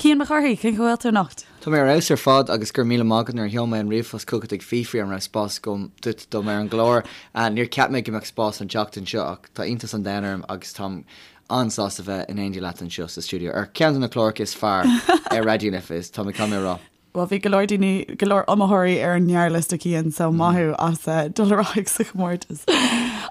Cian Mac Cárthaigh, cén chaoi a bhfuil tú anocht? Tá mé ar fheabhas ar fad agus go raibh míle maith agat nuair a sheol mé an ríomhphost chugat ag fiafraí an raibh spás agam duit dom ar an gclár. Níor cheap mé go mbeadh spás an tseachtain seo ach tá iontas an domhain orm agus táim an-sásta bheith in éindí leat anseo sa stiúideo ar cheann de na cláracha is fearr ar Raidió na Life, tá mé caithfidh mé a rá. Bhuel, bhí go leor daoine, go leor iomaitheoirí ar an ngearrliosta, Cian, so maith thú as dul ar aghaidh sa chomórtas.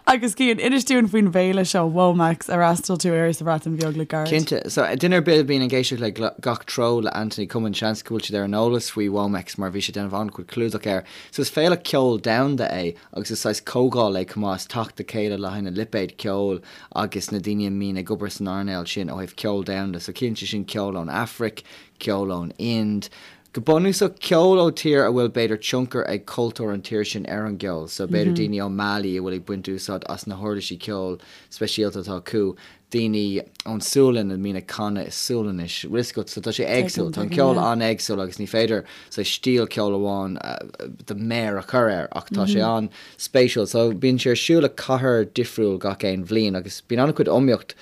Agus Cian, inis dúinn faoin bhféile seo, WOMEX, ar fhreastail tú air sa Bhreatain Bheag le gairid. Cinnte. So, duine ar bith a bhíonn ag éisteacht le Gach Treo le Anthony Cummins, seans go bhfuil siad ar an eolas faoi WOMEX mar bhí sé ag déanamh an-chuid clúdach air. So, is féile ceoil domhanda é agus is saghas comhdháil é chomh maith, is teacht le chéile le haghaidh na lipéid ceoil agus na daoine a mbíonn ag obair san earnáil sin ó thaobh ceol domhanda. So, ciallaíonn sé sin ceol ón Afraic, ceol ón Ind, go bunúsach ceol ó tír a bhfuil b'fhéidir tionchar ag cultúr an tír sin ar an gceol, so b'fhéidir daoine ó Mali a bhfuil ag baint úsáid as na huirlisí ceoil speisialta atá acu, daoine ón Sualainn a mbíonn ag canadh i Sualainnis, bhfuil fhios agat, so tá sé éagsúil, tá an ceol an-éagsúil agus ní féidir saghas stíl ceoil amháin do mhéar a chur air ach tá sé an-spéisiúil. So bíonn sé ar siúl i cathair difriúil gach aon bhliain agus bíonn an-chuid iomaíocht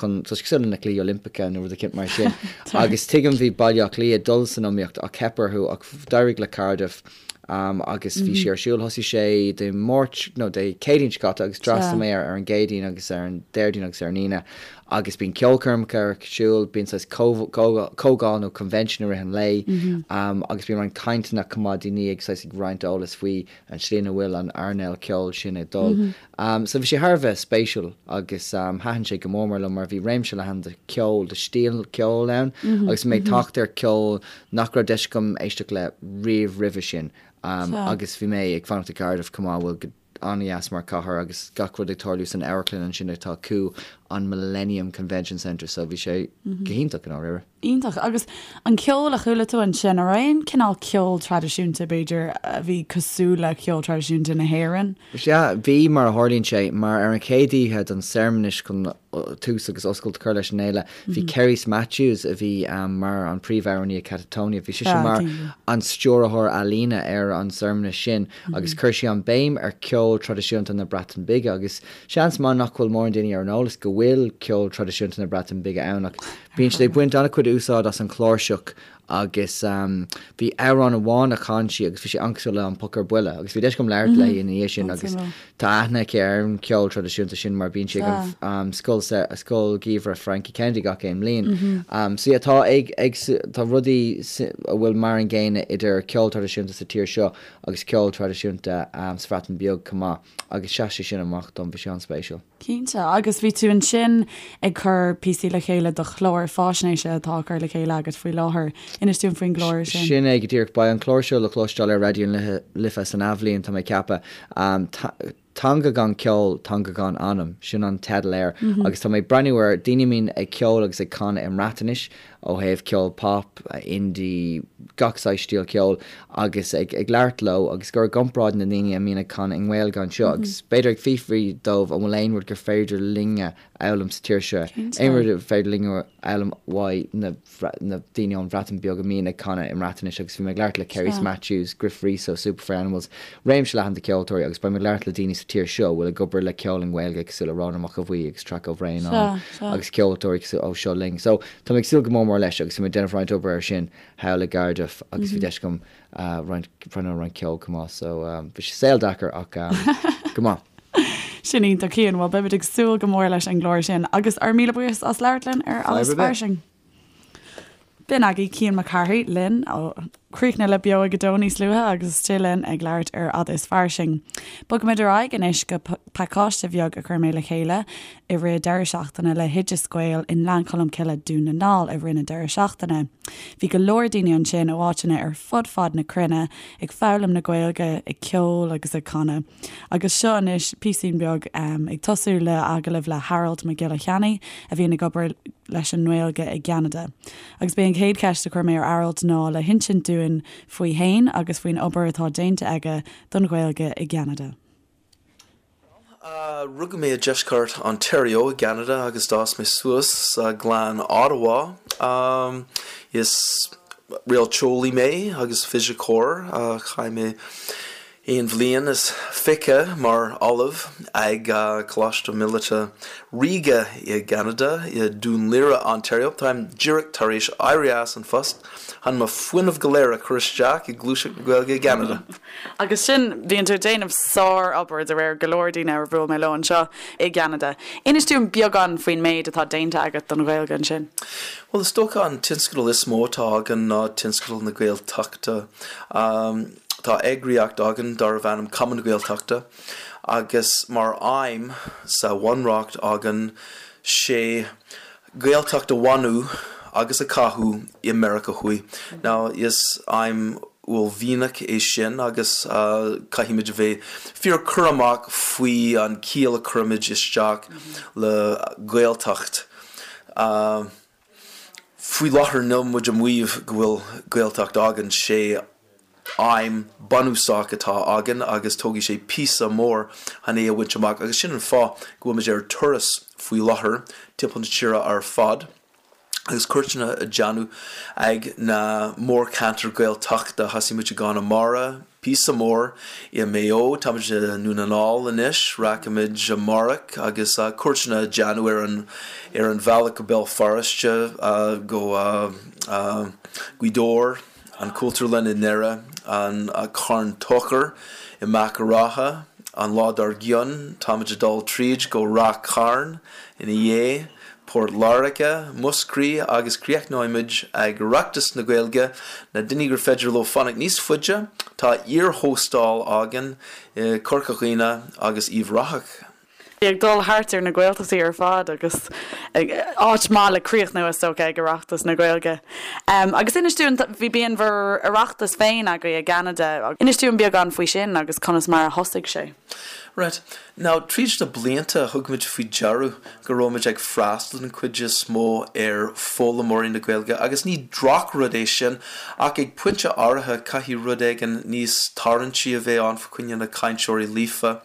chun, tá sé cosúil le na Cluichí Oilimpeacha nó rud eicínt mar sin. Agus tuigim bhí Baile Átha Cliath ag dul san iomaíocht ach theip orthu ach d'éirigh le Cardiff agus bhí sé ar siúl, thosaigh sé Dé Máirt nó Dé Céadaoin seo caite agus d'fhreastail mé air ar an gCéadaoin agus ar an Déardaoin agus ar an Aoine agus bíonn ceolchoirmeacha ar siúl, bíonn saghas comhdháil nó convention i rith an lae agus bíonn roinnt cainteanna chomh maith, daoine ag saghas ag roinnt eolas faoi an tslí ina bhfuil an earnáil ceoil sin ag dul. So bhí sé thar a bheith spéisiúil agus thaitin sé go mór mór liom mar bhí réimse leathan de cheol, de stíl ceoil ann agus bhí mé ag teacht ar cheol nach raibh deis agam éisteacht le riamh roimhe sin agus bhí mé ag fanacht i gCardiff chomh maith a bhfuil go an-dheas mar chathair agus gach rud ag tarlú san amharclann ansin atá acu, an Millennium Convention Centre so bhí sé go hiontach i ndáiríre. Iontach. Agus an ceol a chuala tú ansin, an raibh aon cineál ceol traidisiúnta, b'fhéidir, a bhí cosúil le ceol traidisiúnta na hÉireann? Sea, bhí, mar a tharlaíonn sé, mar ar an chéad oíche den searmanas chun tús agus oscailt a chur leis an fhéile, bhí Cerys Matthews, a bhí mar an príomhamhránaí i Catatonia, bhí sise mar an stiúrthóir ealaíne ar an searmanas sin agus chuir sí an béim ar cheol traidisiúnta na Breataine Bige agus seans maith nach bhfuil mórán daoine ar an eolas go bhfuil ceol traidisiúnta na Breataine Bige ann ach Bíonn siad ag baint an-chuid úsáid as an chláirseach agus bhí amhrán amháin a chan sí agus bhí sé an-cosúil le An Poc ar Buile agus bhí deis agam labhairt léi ina dhiaidh sin agus tá aithne aici ar an cheol traidisiúnta sin mar bíonn sí ag an scoil scoil gheimhridh Frankie Kennedy gach aon bhliain. So yeah tá ag ag tá rudaí a bhfuil mar an gcéanna idir ceol traidisiúnta sa tír seo agus ceol traidisiúnta sa Bhreatain Bheag chomh maith agus sheas sé sin amach dom, bhí sé an-spéisiúil. Cinnte, agus bhí tú ansin ag cur píosaí le chéile do chlár faisnéise atá á cur le chéile agat faoi láthair. Inis dúinn faoin gclár sin. Sin é go díreach. Beidh an clár seo le cloisteáil ar Raidió na Life san athbhliain, tá mé ag ceapadh. Teanga gan ceol, teanga gan anam, sin an teideal air. Agus tá mé ag breathnú ar daoine a mbíonn ag ceol agus ag canadh i mBreatnais, ó thaobh ceol pop, indie, gach saghas stíl ceoil, agus ag labhairt leo agus ag cur i gcomparáid na ndaoine a mbíonn ag canadh i nGaeilge anseo agus b'fhéidir ag fiafraí dóibh an bhfuil aon rud gur féidir linne a fhoghlaim sa tír seo, aon rud ar féidir linne a fhoghlaim uaidh na na daoine ón Bhreatain Bheag a mbíonn ag canadh i mBreatnais agus bhí mé ag labhairt le Cerys Matthews, Gruff Rhys ó Super Furry Animals, réimse leathan de cheoltóirí agus beidh mé ag labhairt le daoine sa tír seo a bhfuil ag obair le ceol i nGaeilge cosúil le Rónán Mac Aodha Bhuí agus Traic Ó Bhraonáin agus ceoltóirí cosúil ó Seo Linn. So tá mé ag súil go mór mór leis agus bhí mé ag déanamh roinnt obair air sin thall i gCardiff agus bhí deis agam roinnt breathnú ar roinnt ceoil chomh maith so bhí sé saol deacair ach go maith. Sin iontach Cian, bhuel beimid ag súil go mór leis an gclár sin agus ár míle buíochas as labhairt linn ar Fhad is Fairsing. B'in agaibh Cian Mac Cárthaigh linn ó chríochnaigh le Beo ag a Dó níos luaithe agus istigh linn ag labhairt ar Fhad is Fairsing. Bogfaimid ar aghaidh anois go pacáiste bheag a chuir mé le chéile i rith deireadh seachtaine le hOideas Gael i nGleann Cholm Cille, Dún na nGall i rith na deireadh seachtaine. Bhí go leor daoine ansin ó áiteanna ar fud fad na cruinne ag foghlaim na Gaeilge, ag ceol agus ag canadh. Agus seo anois píosín beag ag tosú le agallamh le Harold Mac Giolla Cheannaigh a bhíonn ag obair leis an nGaeilge i gCeanada. Agus b'é an chéad cheist a chuir mé ar Harold ná le hinsint dúinn faoi fhéin agus faoin obair atá déanta aige don Ghaeilge i gCeanada. Rugadh mé i deisceart Ontario i gCeanada agus d'fhás mé suas sa ghleann Ottawa. Is réalteolaí mé agus fisiceoir. Chaith mé. Aon bhliain is 20 mar ollamh ag Coláiste Míleata Ríoga i gCeanada, i Dún Laoghaire, Ontario. Táim díreach tar éis éirí as an phost chun mo fuinneamh go léir a chur isteach i gluaiseacht na Gaeilge i gCeanada. Agus sin, bíonn tú ag déanamh sár-obair de réir go leor daoine ar bhuail mé leo anseo i gCeanada. Inis dúinn beagán faoin méid atá déanta agat don Ghaeilge ansin. Bhuel, is dócha an tionscadal is mó atá againn ná tionscadal na Gaeltachta. Tá eagraíocht againn darbh ainm Cumann na Gaeltachta agus mar aidhm sa bhunreacht againn sé Gaeltacht a bhunú agus a chothú i Meiriceá Thuaidh. Now is aidhm uaillmhianach é sin agus caithfimid a bheith fíor cúramach faoi an ciall a chuirimid isteach le Gaeltacht. Faoi láthair níl muid ag maíomh go bhfuil Gaeltacht againn, sé aidhm bunúsach atá againn agus tógfaidh sé píosa mór chun é a bhaint amach agus sin an fáth go bhfuil muid ar turas faoi láthair timpeall na tíre ar fad agus cuairteanna a déanamh ag na mórcheantair Gaeltachta. Thosaigh muid i gConamara, Píosa mór i Maigh Eo, táimid i nDún na nGall anois, rachaimid amárach agus cuairteanna a déanamh ar an ar an bhealach go Béal Feirste, go Gaoth Dobhair, an Chultúrlann i nDoire, an Carn Tóchair i Machaire Rátha, an lá dár gcionn táimid ag dul tríd go Ráth Chairn ina dhiaidh. Port Láirge, Múscraí agus críochnóimid ag Oireachtas na Gaeilge. Na daoine gur féidir leo fanacht níos faide, tá iar-hóstáil againn i Corca Dhuibhne agus Uíbh Ráthach. Ag dul thart ar na Gaeltachtaí ar fad agus áit maith le críochnú is dócha ag Oireachtas na Gaeilge. Agus inis dúinn, bhí bíonn bhur Oireachtas féin agaibh i gCeanada. Inis dúinn beagán faoi sin agus conas mar a thosaigh sé. Right. Now, tríd na blianta, thug muid faoi dearadh go raibh muid ag freastal den chuid is mó ar foghlaimeoirí na Gaeilge, agus ní drochrud é sin, ach ag pointe áirithe caithfidh rud éigin níos tarraingtí a bheith ann fá choinne na cainteoirí líofa,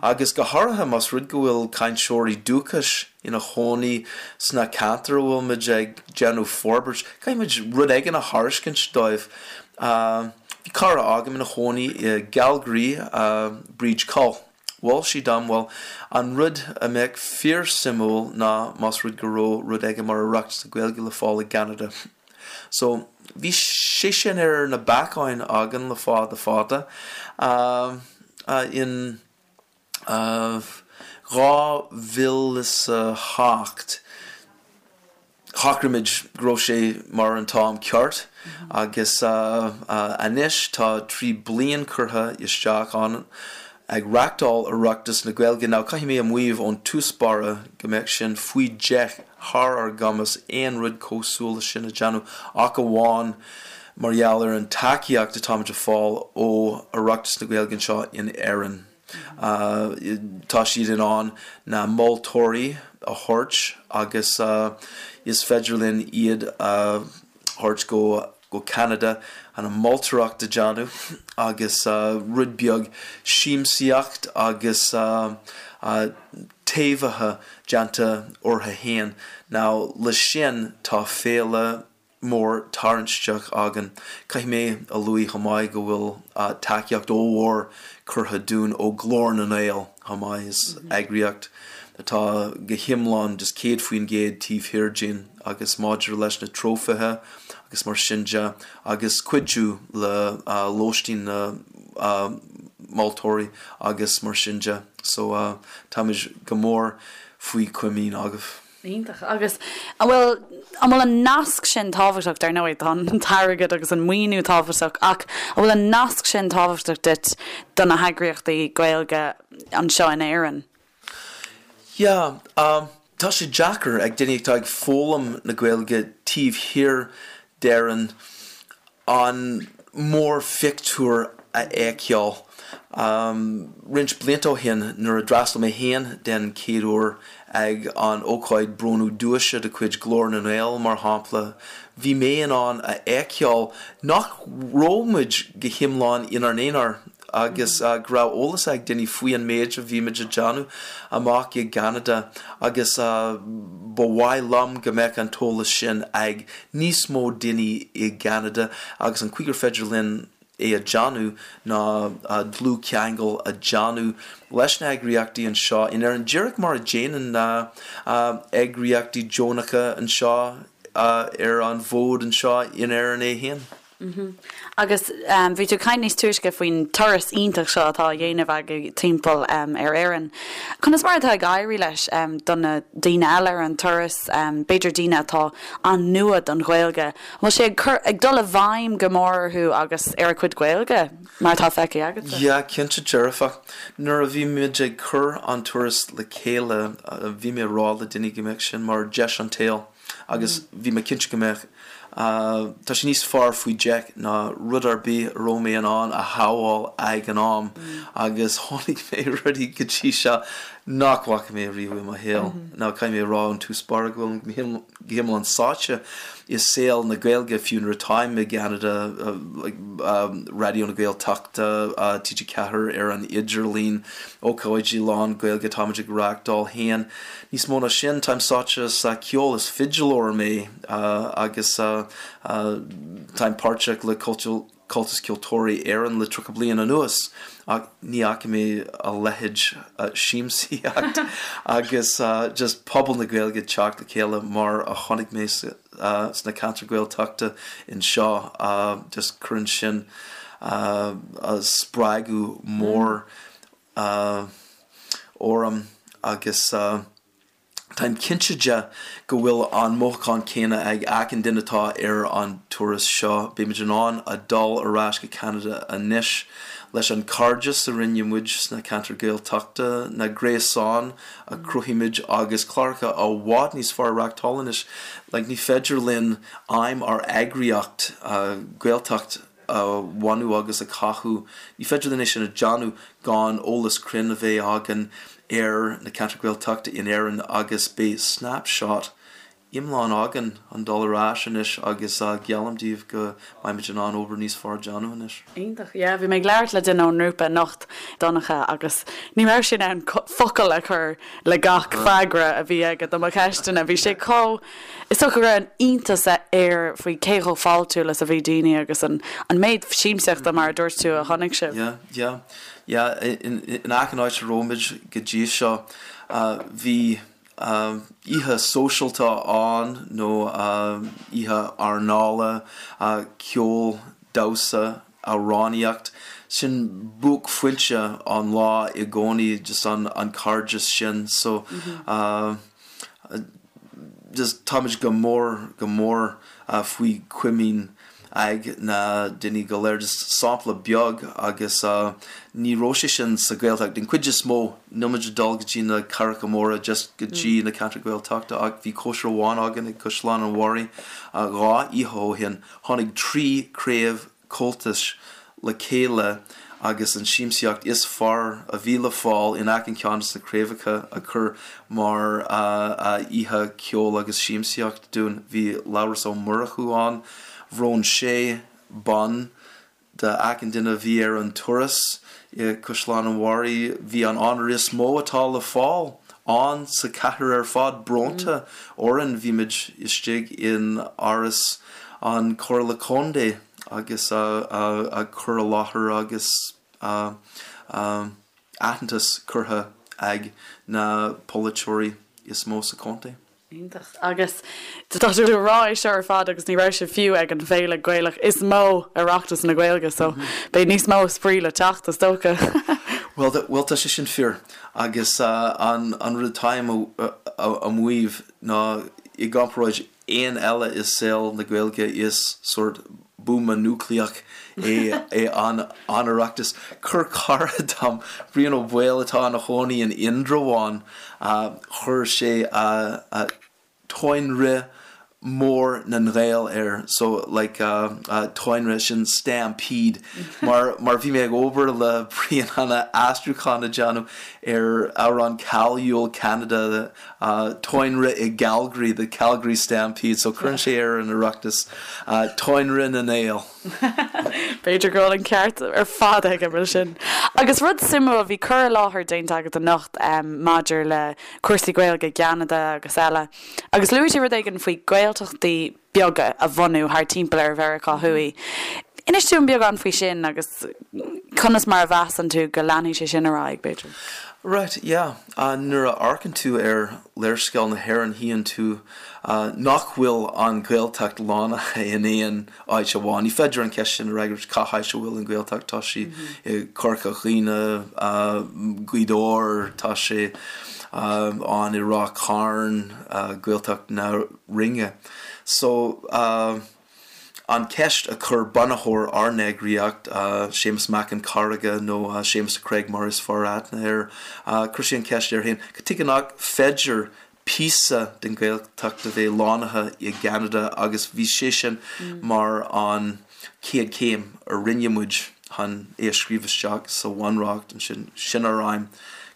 agus go háirithe más rud go bhfuil cainteoirí dúchais ina chónaí sna ceantair a bhfuil muid ag déanamh forbairt, caithfidh muid rud éigin a thairiscint dóibh. Bhí cara agam ina chónaí i gCalgary, Bríd Coll. Mhol sí dom, bhuel, an rud a mbeadh fíor-suimiúil ná más rud go raibh rud éigin mar Oireachtas na Gaeilge le fáil i gCeanada. So, bhí sé sin ar na bacáin againn le fada fada. In 2008, Shocraigh muid go raibh sé mar an t-am ceart agus anois tá 3 bliain curtha isteach ann ag reachtáil Oireachtas na Gaeilge. Now caithfidh mé a mhaíomh ón tús báire go mbeadh sin faoi deich thar ár gcumas aon rud cosúil le sin a déanamh ach amháin mar gheall ar an tacaíocht atáimid a fáil ó Oireachtas na Gaeilge anseo in Éirinn. Tá siad in ann na moltóirí a thabhairt agus is féidir linn iad a thabhairt go go Ceanada chun an moltóireacht a déanamh agus rud beag siamsaíocht agus taibhithe déanta orthu fhéin. Now le sin tá féile mór tarraingteach againn. Caithfidh mé a luaigh chomh maith go bhfuil tacaíocht ollmhór curtha dúinn ó Glór na nGael chomh maith. Is eagraíocht atá go hiomlán just 100% taobh thiar dínn agus maidir leis na trófaithe agus mar sin de agus cuidiú le lóistín na moltóirí agus mar sin de. So táimid go mór faoi chomaoin agaibh. Iontach. Agus an bhfuil, an bhfuil an nasc sin tábhachtach, dar ndóigh tá an t-airgead agus an maoiniú tábhachtach ach an bhfuil an nasc sin tábhachtach duit do na heagraíochtaí Gaeilge anseo in Éirinn? Yeah, tá sé deacair ag daoine atá ag foghlaim na Gaeilge taobh thiar d'Éirinn an mórphictiúr a fheiceáil. Roinnt blianta ó shin, nuair a d'fhreastail mé féin den chéad uair ag an ócáid bronnadh duaise de chuid Glór na nGael, mar shampla, bhí mé in ann a fheiceáil nach raibh muid go hiomlán inár n-aonar agus go raibh eolas ag daoine faoi an méid a bhí muid a déanamh amach i gCeanada agus ba mhaith liom go mbeadh an t-eolas sin ag níos mó daoine i gCeanada agus an chaoi gur féidir linn. é a déanamh ná dlúthcheangal a déanamh leis na heagraíochtaí anseo in Éirinn, díreach mar a déanann na heagraíochtaí deonacha anseo ar an bhfód anseo in Éirinn é féin. Agus bhí tú ag caint níos túisce faoin turas iontach seo atá á dhéanamh agaibh timpeall ar Éirinn. Conas mar atá ag éirí leis do na daoine eile ar an turas, b'fhéidir daoine atá an-nua don Ghaeilge? An bhfuil sé ag cur, ag dul i bhfeidhm go mór orthu agus ar a gcuid Gaeilge, mar atá feicthe agatsa? Yeah, cinnte dearfach. Nuair a bhí muid ag cur an turas le chéile, bhí mé ag rá le daoine go mbeadh sin mar deis an tsaoil. agus bhí mé cinnte go mbeadh. Tá sé níos fearr faoi deich ná rud ar bith a raibh mé in ann a shamháil ag an am agus chonaic mé rudaí go dtí seo nach bhfaca mé riamh i mo shaol. Now caithfidh mé a rá ón tús báire go bhfuil go hiomlán sáite i saol na Gaeilge fiú nuair atáim i gCeanada, Raidió na Gaeltachta, TG4 ar an idirlíon, ócáidí lán Gaeilge atáimid ag reáchtáil féin. Níos mó ná sin, táim sáite sa cheol, is fidileoir mé agus táim páirteach le Comhaltas Ceoltóirí Éireann le 30 bliain anuas ach ní fhaca mé a leithéid siamsaíocht agus just pobal na Gaeilge ag teacht le chéile mar a chonaic mé sna ceantair Gaeltachta anseo, just cuireann sin spreagadh mór orm agus táim cinnte de go bhfuil an mothúchán céanna ag achan duine atá ar an turas seo. Beimid in ann a dul ar ais go Ceanada anois leis an cairdeas a rinne muid sna ceantair Gaeltachta, na gréasáin a chruthaigh muid agus cláracha i bhfad níos fearr a reáchtáil anois. Like ní féidir linn aidhm ár eagraíocht, Gaeltacht, a bhunú agus a chothú. Ní féidir linn é sin a dhéanamh gan eolas cruinn a bheith againn ar na ceantair Ghaeltachta in Éirinn agus beidh snapshot iomlán againn chun dul ar ais anois agus geallaim daoibh go mbeimid in ann obair níos fearr a dhéanamh anois. Iontach, yeah. Bhí mé ag labhairt le duine ón ngrúpa anocht, Donncha, agus ní raibh sé in ann focal a chur le gach freagra a bhí aige do mo cheisteanna. Bhí sé chomh. Is dócha go raibh an iontas air faoi cé chomh fáiltiúil is a bhí daoine agus an méid siamsaíochta, mar a dúirt tú, a chonaic sibh. Yeah, yeah, yeah. In achan áit a raibh muid go dtí seo, bhí oíche sóisialta ann nó oíche airneála, ceol, damhsa, amhránaíocht. Sin buaicphointe an lá i gcónaí, just an cairdeas sin. So, just táimid go mór, go mór faoi chomaoin ag na daoine go léir. Just sampla beag agus ní raibh sé sin sa Ghaeltacht. Den chuid is mó, níl muid ag dul go dtí na cathracha móra, just go dtí na ceantair Ghaeltachta ach bhí cóisir amháin againn ag Caisleán an Bharraigh 2 oíche ó shin. Tháinig 3 craobh Comhaltais le chéile agus an siamsaíocht is fearr a bhí le fáil in achan ceann de na craobhacha a chur mar oíche ceoil agus siamsaíocht dúinn. Bhí Labhrás Ó Murchú ann, bhronn sé bonn d'achan duine a bhí ar an turas i Caisleán an Bharraigh. Bhí an onóir is mó atá le fáil ann sa chathair ar fad bronnta orainn. Bhí muid istigh in Áras an Chomhairle Contae agus a cur i láthair agus aitheantas curtha ag na polaiteoirí is mó sa chontae. Iontach. Agus tá tú ag rá é seo ar fad agus ní raibh sibh fiú ag an bhféile Gaelach is mó, Oireachtas na Gaeilge, so beidh níos mó spraoi le teacht is dócha. Bhuel, bhuel tá sé sin fíor agus an rud atáim a mhaíomh ná i gcomparáid aon eile i saol na Gaeilge is sórt buama núicléach é é an an Oireachtas. Chuir cara dom, Brian Ó Baoill atá ina chónaí in Indreabhán, chuir sé Táinrith Mór na nGael air, so like táinrith sin stampede mar mar bhí mé ag obair le Brian chun aistriúchán a dhéanamh ar amhrán cáiliúil Ceanada Táinrith i gCalgary, the Calgary Stampede, so cuireann sé ar an Oireachtas, Táinrith na nGael. B'fhéidir go bhfuil an ceart ar fad aige mar sin. Agus rud suimiúil, bhí cur i láthair déanta agat anocht maidir le cúrsaí Gaeilge i gCeanada agus eile, agus luaigh tú rud éigin faoi Gaeltachtaí beaga a bhunú thar timpeall ar Mheiriceá Thuaidh. Inis dúinn beagán faoi sin agus conas mar a mheasann tú go leanfaidh sé sin ar aghaidh, b'fhéidir? Right, yeah. Nuair a amharcann tú ar léarscáil na hÉireann tchíonn tú nach bhfuil an Ghaeltacht lonnaithe in aon áit amháin. Ní féidir an cheist sin a fhreagairt, cá háit a bhfuil an Ghaeltacht? Tá sí i Corca Dhuibhne, Gaoth Dobhair, tá sé ann i Ráth Chairn, Gaeltacht na Rinne. So, an cheist a chuir bunaitheoir ár n-eagraíocht, Séamus Mac an Charraige nó Séamus the Craig mar is fearr aithne air, chuir sé an cheist air féin, cad tuige nach féidir píosa den Ghaeltacht a bheith lonnaithe i gCeanada agus bhí sé sin mar an chéad chéim a rinne muid chun é a scríobh isteach sa Bhunreacht ansin. Sin ár aidhm,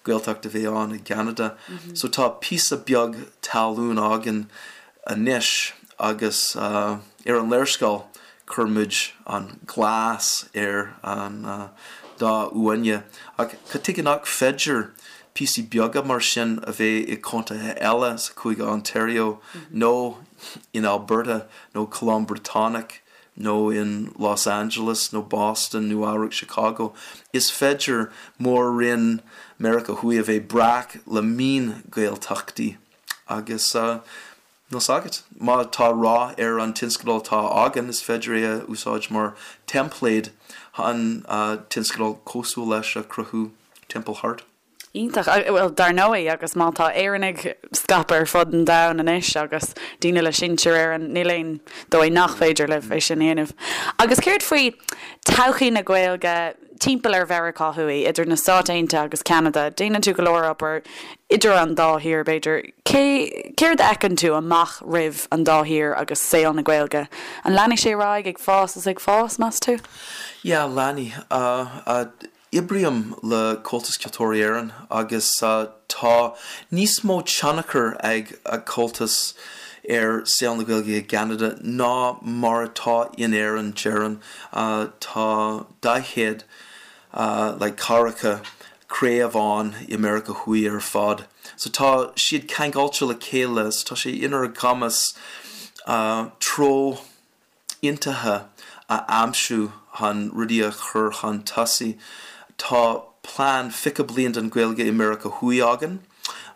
Gaeltacht a bheith ann i gCeanada. So tá píosa beag talún againn anois agus ar an léarscáil chuir muid an glas ar an dath uaine. Ach cad tuige nach féidir píosaí beaga mar sin a bheith i contaetha eile sa chúige Ontario nó in Alberta nó Colóim Briotanach nó in Los Angeles nó Boston, Nua-Eabhrac, Chicago. Is féidir mór-roinn Meiriceá Thuaidh a bheith breac le mion-Ghaeltachtaí. Agus níl 's agat, má tá rath ar an tionscadal atá againn, is féidir é a úsáid mar teimpléad chun tionscadal cosúil leis a chruthú timpeall thart. Iontach. Bhuel, dar ndóigh, agus má tá Éireannaigh scaipthe ar fud an domhain anois agus daoine le sinsir Éireann, níl aon dóigh nach féidir libh é sin a dhéanamh. Agus céard faoi todhchaí na Gaeilge timpeall ar Mheiriceá Thuaidh, idir na Stáit Aontaithe agus Ceanada? Déanann tú go leor obair idir an dá thír, b'fhéidir. Cé, céard a fheiceann tú amach roimh an dá thír agus saol na Gaeilge? An leanfaidh sé ar aghaidh ag fás is ag fás, meas tú? Yeah, leanfaidh. Oibrím le Comhaltas Ceoltóirí Éireann agus tá níos mó tionchar ag Comhaltas ar saol na Gaeilge i gCeanada ná mar atá in Éirinn, déarfainn. Tá 40 like ceathracha craobh ann i Meiriceá Thuaidh ar fad. So tá siad ceangailte le chéile so tá sé inár gcumas treo aontaithe a aimsiú chun rudaí a chur chun tosaigh. Tá plean 20 bliain don Ghaeilge i Meiriceá Thuaidh againn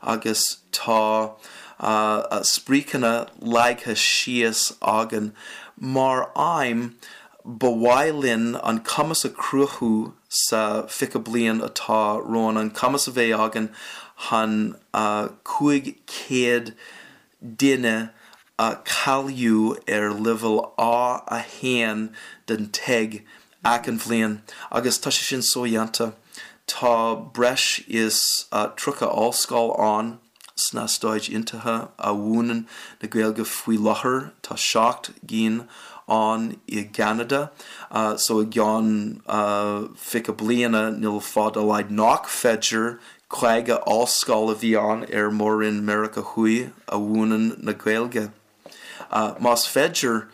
agus tá spriocanna leagtha síos againn. Mar aidhm, ba mhaith linn an cumas a chruthú sa 20 bliain atá romhainn, an cumas a bheith againn chun 500 duine a cháiliú ar leibhéal A1 den TEG achan bhliain agus tá sé sin sodhéanta. Tá breis is 30 ollscoil ann sna Stáit Aontaithe a mhúineann na Gaeilge faoi láthair, tá 7 gcinn ann i gCeanada so i gceann 20 bliana níl fáth dá laghad nach féidir 50 ollscoil a bhí ann ar Mhór-Roinn Meiriceá Thuaidh a mhúineann na Gaeilge. Más féidir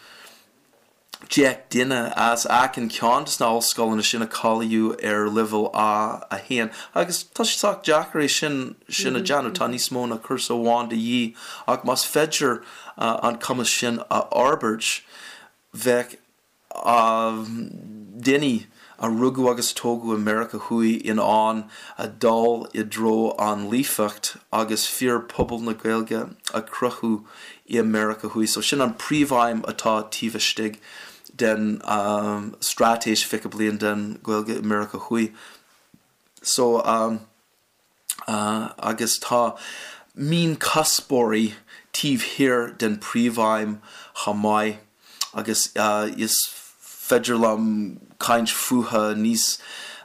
10 duine as achan ceann de na ollscoileanna sin a cháiliú ar leibhéal A1, agus tá sé sách deacair é sin sin a dhéanamh, tá níos mó ná cúrsa amháin de dhíth, ach más féidir an cumas sin a fhorbairt, bheadh daoine a rugadh agus a tógadh i Meiriceá Thuaidh in ann a dul i dtreo an líofacht agus fíorphobal na Gaeilge a chruthú i Meiriceá Thuaidh. So sin an príomhaidhm atá taobh istigh den straitéis 20 bliain den Ghaeilge i Meiriceá Thuaidh. So. agus tá mionchuspóirí taobh thiar den príomhaidhm chomh maith agus is féidir liom caint fúthu níos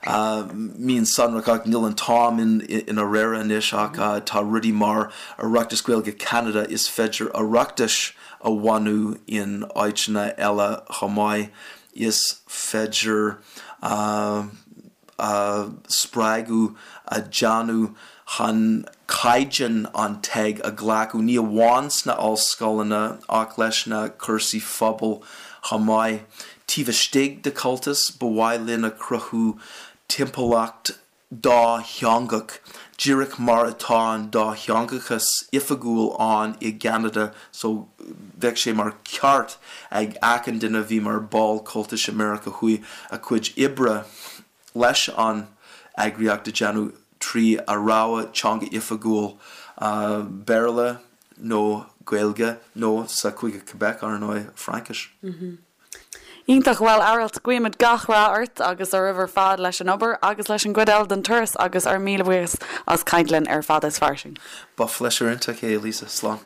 mionsonrach ach níl an t-am inár réir anois ach tá rudaí mar Oireachtas Gaeilge Cheanada, is féidir Oireachtais a bhunú in áiteanna eile chomh maith, is féidir. spreagadh a dhéanamh chun caighdeán an TEG a ghlacadh, ní amháin sna ollscoileanna ach leis na cúrsaí phobail chomh maith. Taobh istigh de Comhaltas, ba mhaith linn a chruthú timpeallacht dátheangach. Díreach mar atá an dátheangachas oifigiúil ann i gCeanada so bheadh sé mar cheart ag achan duine a bhí mar ball Comhaltais i Meiriceá Thuaidh a cuid oibre leis an eagraíocht a dhéanamh trí a rogha teanga oifigiúil, Béarla nó Gaeilge nó sa Chúige Quebec, ar ndóigh, Fraincis. Iontach, bhuel Aralt, guímid gach rath ort agus oraibh ar fad leis an obair agus leis an gcuid eile den turas agus ár míle buíochas as caint linn ar Fada is Fairsing. Ba phléisiúr iontach é, Lisa. Slán.